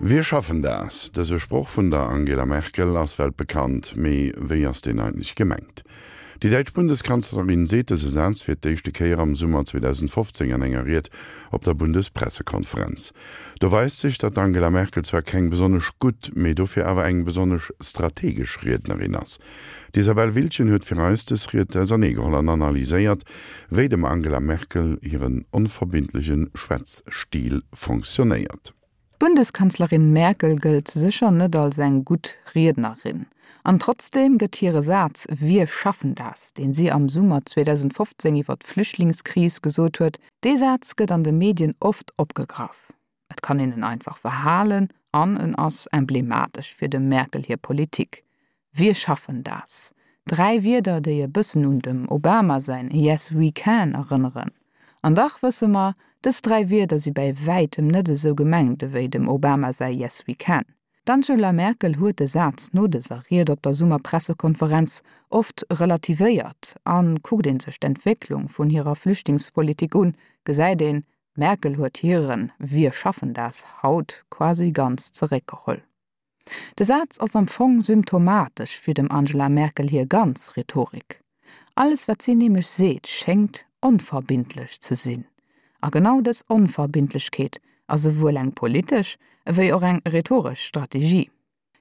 Wir schaffen das! Dëse Sproch vun der Angela Merkel ass weltbekannt, mee wéi ass deen eigentlech gemengt? Déi däitsch Bundeskanzlerin seet dëse Saz fir d'éischte Kéier am Summer 2015 an enger Ried op der Bundespressekonferenz. Do weist sech, datt d'Angela Merkel zwar keng besonnesch gutt, mee dofir awer eng besonnesch strategesch Riednerin ass. D'Isabelle Wiltgen huet fir eis dës Ried auserneegeholl an analyséiert, wéi dem Angela Merkel hiren onverbindleche Schwätzstil fonctionnéiert. D'Bundeskanzlerin Merkel gëllt sécher net als eng gutt Riednerin. An trotzdeem gëtt hire Saz Wir schaffen das, deen si am Summer 2015 iwwer d'Flüchtlingskris gesot huet, dee Saz gëtt an de Medien oft opgegraff. Et kann een en einfach verhalen an en ass emblematesch fir dem Merkel hir Politik. Wir schaffen das. Dräi Wierder, déi e bëssen un dem Obama säin Yes, we can erënneren. An dach wësse mer, dës dräi Wierder si bäi wäitem net esou gemengt ewéi dem Obama säi Yes, we can. D'Angela Merkel huet de Saz no dëser Ried op der Summerpressekonferenz oft relativéiert. A kuckt ee sech d'Entwécklung vun hirer Flüchtlingspolitik un, gesäit een, d'Merkel huet hiren Wir schaffen das haut quasi ganz zeréckgeholl. De Saz ass am Fong symptomatesch fir dem Angela Merkel hir ganz Rhetorik. Alles wat si nämlech seet, schéngt onverbindlech ze sinn. A genau dës Onverbindlechkeet ass esouwuel eng politesch ewéi och eng rhetoresch Strategie.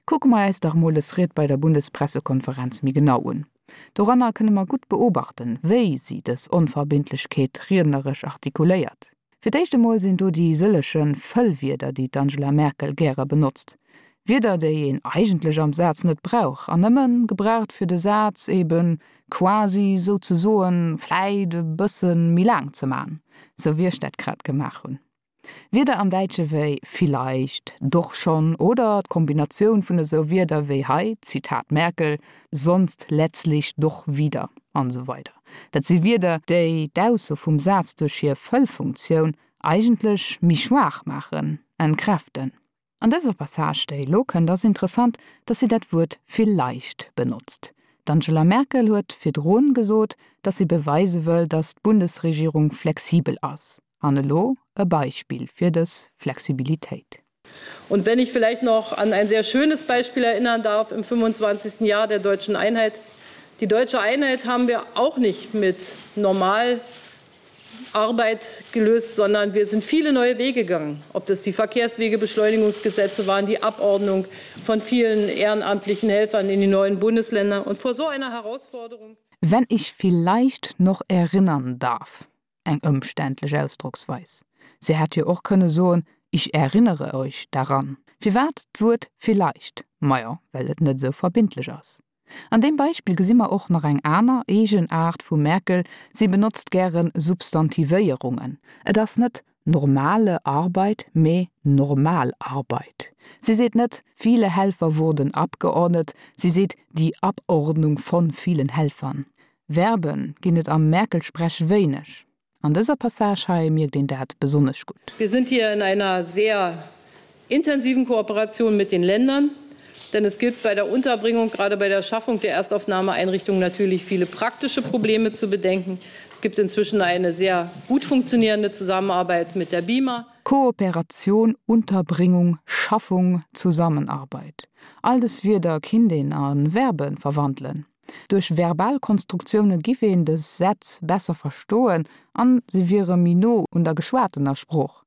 Kucke mer äis dach mol dës Ried bei der Bundespressekonferenz méi genau un. Doranner kënne mer gutt beobachten, wéi si dës Onverbindlechkeet riedneresch artikuléiert. Fir d'éischt emol sinn do déi sëllege Fëllwierder, déi d'Angela Merkel gäre benotzt. Wierder, déi een eigentlech am Saz net brauch an nëmme gebraucht, fir de Saz eben quasi, souzesoen, vläit e bësse méi laang ze man, sou wéi ech dat grad gemaach hunn. Wierder am Däitsche wéi vielleicht, doch schon oder d'Kombinatioun vun esou Wierder wéi hei, Zitat Merkel, sonst letztlich doch wieder an esou weider. Dat si Wierder, déi d'Ausso vum Saz duerch hir Fëllfunktioun eigentlech méi schwaach maachen, entkräften. An dëser Passage, déi elo kënnt, ass interessant, datt si dat Wuert vielleicht benotzt. D'Angela Merkel huet virdrun gesot, datt si beweise wëll, datt d'Bundesregierung flexibel ass. An elo e Beispill fir dës Flexibilitéit. Und wenn ich vielleicht noch an ein sehr schönes Beispiel erinnern darf im 25. Jahr der deutschen Einheit. Die deutsche Einheit haben wir auch nicht mit Normalarbeit gelöst, sondern wir sind viele neue Wege gegangen. Ob das die Verkehrswegebeschleunigungsgesetze waren, die Abordnung von vielen ehrenamtlichen Helfern in die neuen Bundesländer und vor so einer Herausforderung. Wenn ich vielleicht noch erinnern darf. Eng ëmständlech Ausdrocksweis. Si hätt jo och kënne soen, Ich erinnere euch daran. Firwat d'Wuert vielleicht? Majo, well et net esou verbindlech ass. An deem Beispill gesi mer och nach eng aner Eegenaart vum Merkel, Si benotzt gäre Substantivéierungen. Et ass net normale Arbeit, mee Normalarbeit. Si seet net viele Helfer wurden abgeordnet, si seet die Abordnung von vielen Helfern. Verben ginn et am Merkel-Sprech wéineg. An dëser Passage hei mierkt een dat besonnesch gutt. Wir sind hier in einer sehr intensiven Kooperation mit den Ländern, denn es gibt bei der Unterbringung, gerade bei der Schaffung der Erstaufnahmeeinrichtungen natürlich viele praktische Probleme zu bedenken. Es gibt inzwischen eine sehr gut funktionierende Zusammenarbeit mit der BIMA. Kooperation, Unterbringung, Schaffung, Zusammenarbeit. All dës Wierder kinnt een a Verbe verwandelen. Duerch verbal Konstruktioune giff een dës Sätz besser verstoen an se wiere méi no un der geschwatener Sprooch.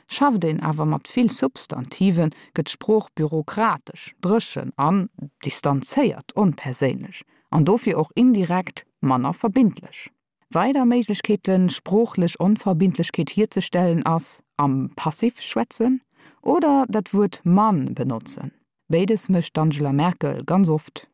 Schafft een awer mat vill Substantiven, gëtt d'Sprooch bürokratesch, dréchen an distanzéiert, onperséinlech an dofir och indirekt manner verbindlech. Weider Méiglechkeeten, sproochlech Onverbindlechkeet hierzestellen ass, am Passiv schwätzen oder dat Wuert man benotzen. Béides mécht d'Angela Merkel ganz oft.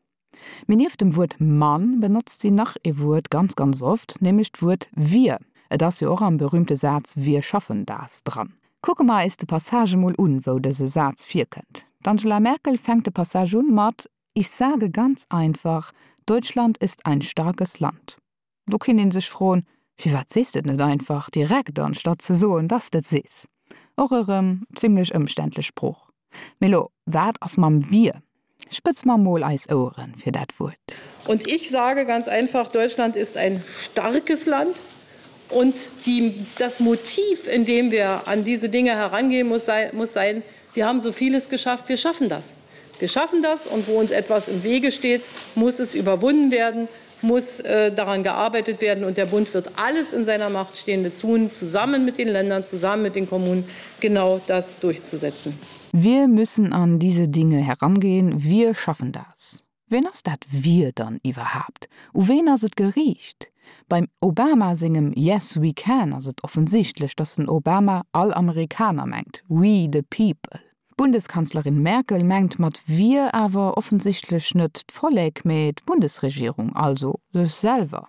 Mee nieft dem Wuert man benotzt si nach ee Wuert ganz, ganz oft, nämlech d'Wuert wir. Et ass jo och am berühmte Saz Wir schaffen das dran. Kucke mer eis de Passage emol un, wou dëse Saz virkënnt. D'Angela Merkel fänkt de Passage un mat Ich sage ganz einfach, Deutschland ist ein starkes Land. Do kinnt een sech froen, Firwat sees de et net einfach direkt anstatt ze soen, dass de et sees? Och erëm zimlech ëmständlech Sprooch. Mee lo, wat ass mam wir? Spëtz mer mol eis Oueren fir dat Wuert. Und ich sage ganz einfach, Deutschland ist ein starkes Land. Und die, das Motiv, in dem wir an diese Dinge herangehen, muss sein, muss sein, wir haben so vieles geschafft, wir schaffen das. Wir schaffen das und wo uns etwas im Wege steht, muss es überwunden werden, muss äh, daran gearbeitet werden und der Bund wird alles in seiner Macht Stehende tun, zusammen mit den Ländern, zusammen mit den Kommunen genau das durchzusetzen. Wir müssen an diese Dinge herangehen, wir schaffen das. Ween ass dat wir dann iwwerhaapt? U ween ass et geriicht? Beim Obama sengem Yes we can ass et offensichtlech, datt den Obama all Amerikaner mengt, we the people. D'Bundeskanzlerin Merkel mengt mat wir awer offensichtlech net d'Vollek, mee d'Bundesregierung, also sech selwer.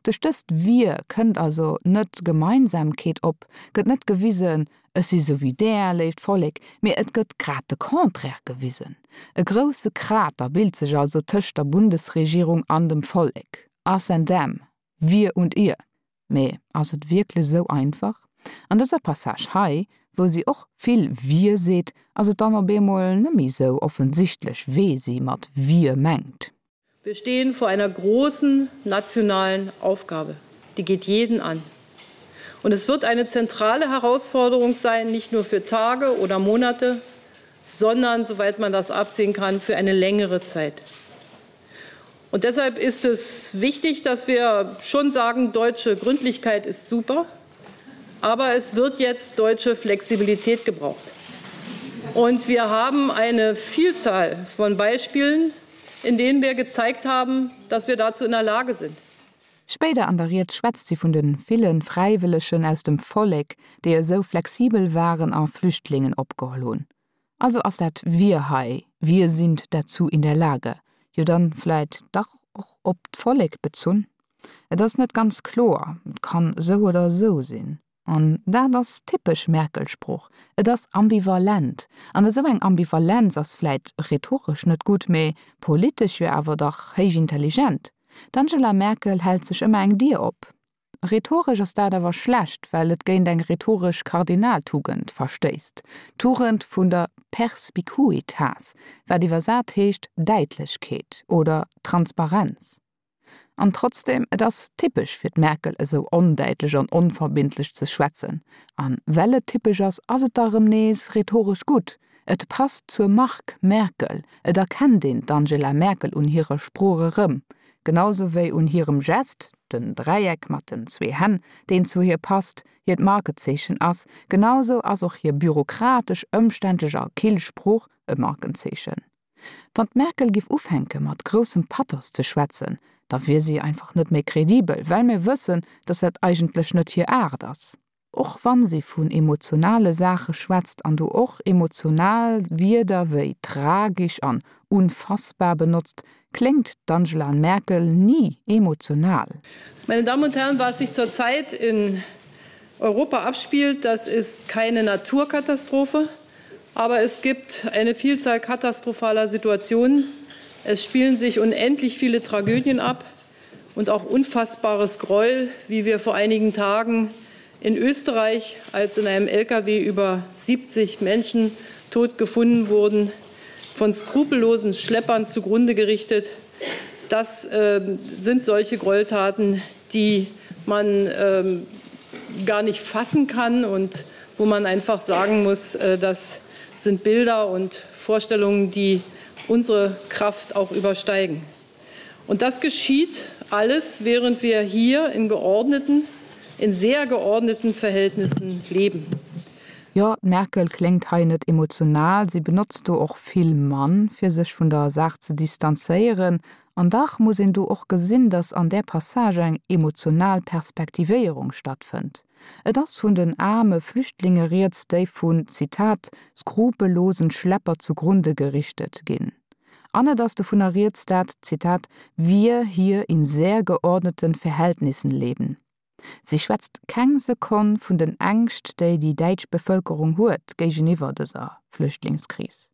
Duerch dëst Wir kënnt also net Gemeinsamkeet op, gëtt net gewisen, ech si sou wéi där, léift Vollek, mee et gëtt grad de Contraire gewisen. E grousse Krater bilt sech also tëscht der Bundesregierung an dem Vollek, us and them, wir und ihr. Mee ass et wierklech sou einfach? An dëser Passage hei, wou si och vill wir seet, ass et dann op eemol net méi sou offensichtlech, wee si mat wir mengt. Wir stehen vor einer großen nationalen Aufgabe. Die geht jeden an. Und es wird eine zentrale Herausforderung sein, nicht nur für Tage oder Monate, sondern, soweit man das absehen kann, für eine längere Zeit. Und deshalb ist es wichtig, dass wir schon sagen, deutsche Gründlichkeit ist super, aber es wird jetzt deutsche Flexibilität gebraucht. Und wir haben eine Vielzahl von Beispielen, in denen wir gezeigt haben, dass wir dazu in der Lage sind. Spéider an der Ried schwätzt si vun de ville Fräiwëllegen aus dem Vollek, déi esou flexibel waren a Flüchtlingen opgeholl hunn. Also ass dat wir hei, wir sind dazu in der Lage, jo dann vläit dach och op d'Vollek bezunn? Et ass net ganz kloer, et kann esou oder esou sinn. An dat ass typesch Merkel-Sprooch, et ass ambivalent. An esou eng Ambivalenz ass vläit rhetoresch net gutt, mee politesch jo awer dach héich intelligent. D'Angela Merkel hält sech ëmmer eng Dier op. Rhetoresch ass dat awer schlecht, well et géint eng rhetoresch Kardinaltugend verstéisst, d'Tugend vun der Perspicuitas, wat iwwersat heescht Däitlechkeet oder Transparenz. An trotzdem, et ass typesch fir d'Merkel esou ondäitlech an onverbindlech ze schwätzen. An well et typesch ass, ass et da rëm nees rhetoresch gutt. Et passt zur Mark Merkel, et erkennt een d'Angela Merkel un hirer Sprooch erëm, genau sou wéi un hirem Gest, den Dräieck mat den zwee Hänn, deen zu hir passt, hiert Markezeechen ass, genau sou ass och hir bürokratesch, ëmständlech a kill Sprooch e Markenzeechen. Wann d'Merkel giff ufänke mat groussem Pathos ze schwätzen, da wier si einfach net méi kredibel, well mir wëssen, datt dat eigentlech net hir Aart ass. Och wann si vun emotionale Saache schwätzt an do och emotional Wierder wéi tragisch an unfassbar benotzt, kléngt d'Angela Merkel ni emotional. Meine Damen und Herren, was sich zurzeit in Europa abspielt, das ist keine Naturkatastrophe. Aber es gibt eine Vielzahl katastrophaler Situationen. Es spielen sich unendlich viele Tragödien ab und auch unfassbares Gräuel, wie wir vor einigen Tagen in Österreich, als in einem LKW über 70 Menschen tot gefunden wurden, von skrupellosen Schleppern zugrunde gerichtet. Das äh, sind solche Gräueltaten, die man äh, gar nicht fassen kann und wo man einfach sagen muss, äh, das sind Bilder und Vorstellungen, die unsere Kraft auch übersteigen. Und das geschieht alles, während wir hier in geordneten, in sehr geordneten Verhältnissen leben. Jo, d'Merkel kléngt hei net emotional, si benotzt do och vill Mann, fir sech vun der Saach ze distanzéieren. An dach muss een do och gesinn, datt an där Passage eng emotional Perspektivéierung stattfënnt. Et ass vun den aarme Flüchtlinge rieds, déi vun, Zitat, skrupellosen Schlepper zugrunde gerichtet ginn. An et ass dovunner rieds, dat, Zitat, wir hier in sehr geordneten Verhältnissen leben. Si schwätzt keng Sekonn vun den Ängscht, déi déi däitsch Bevëlkerung huet géigeniwwer dëser Flüchtlingskris.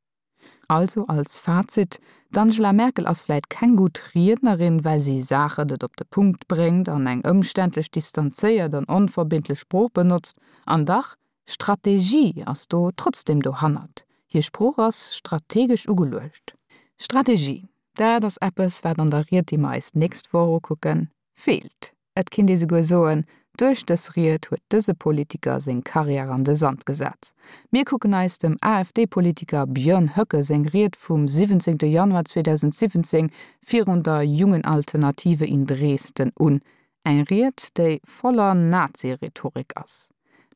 Also als Fazit, D'Angela Merkel ass vläit keng gutt Riednerin, well si Saachen net op de Punkt bréngt an eng ëmständlech, distanzéiert an onverbindlech Sprooch benotzt. An dach, Strategie ass do trotzdem dohannert. Hir Sprooch ass strategesch ugeluecht. Strategie, dat ass eppes, wat an der Ried, déi mer eis d'nächst Woch ukucken, feelt. Et kinnt ee souguer soen, Duerch dës Ried huet dëse Politiker seng Karriär an de Sand gesat. Mir kucken eis dem AfD-Politiker Björn Höcke seng Ried vum 17 Januar 2017 virun der Jungen Alternative in Dresden un. Eng Ried, déi voller Nazi-Rhetorik ass.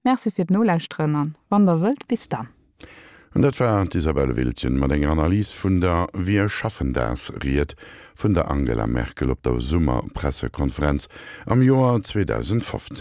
Merci fir d'Nolauschteren an wann der wëllt, bis dann. An dat war d'Isabelle Wiltgen mat enger Analys vun der Wir schaffen das Ried vun der Angela Merkel op der Summerpressekonferenz am Joer 2015.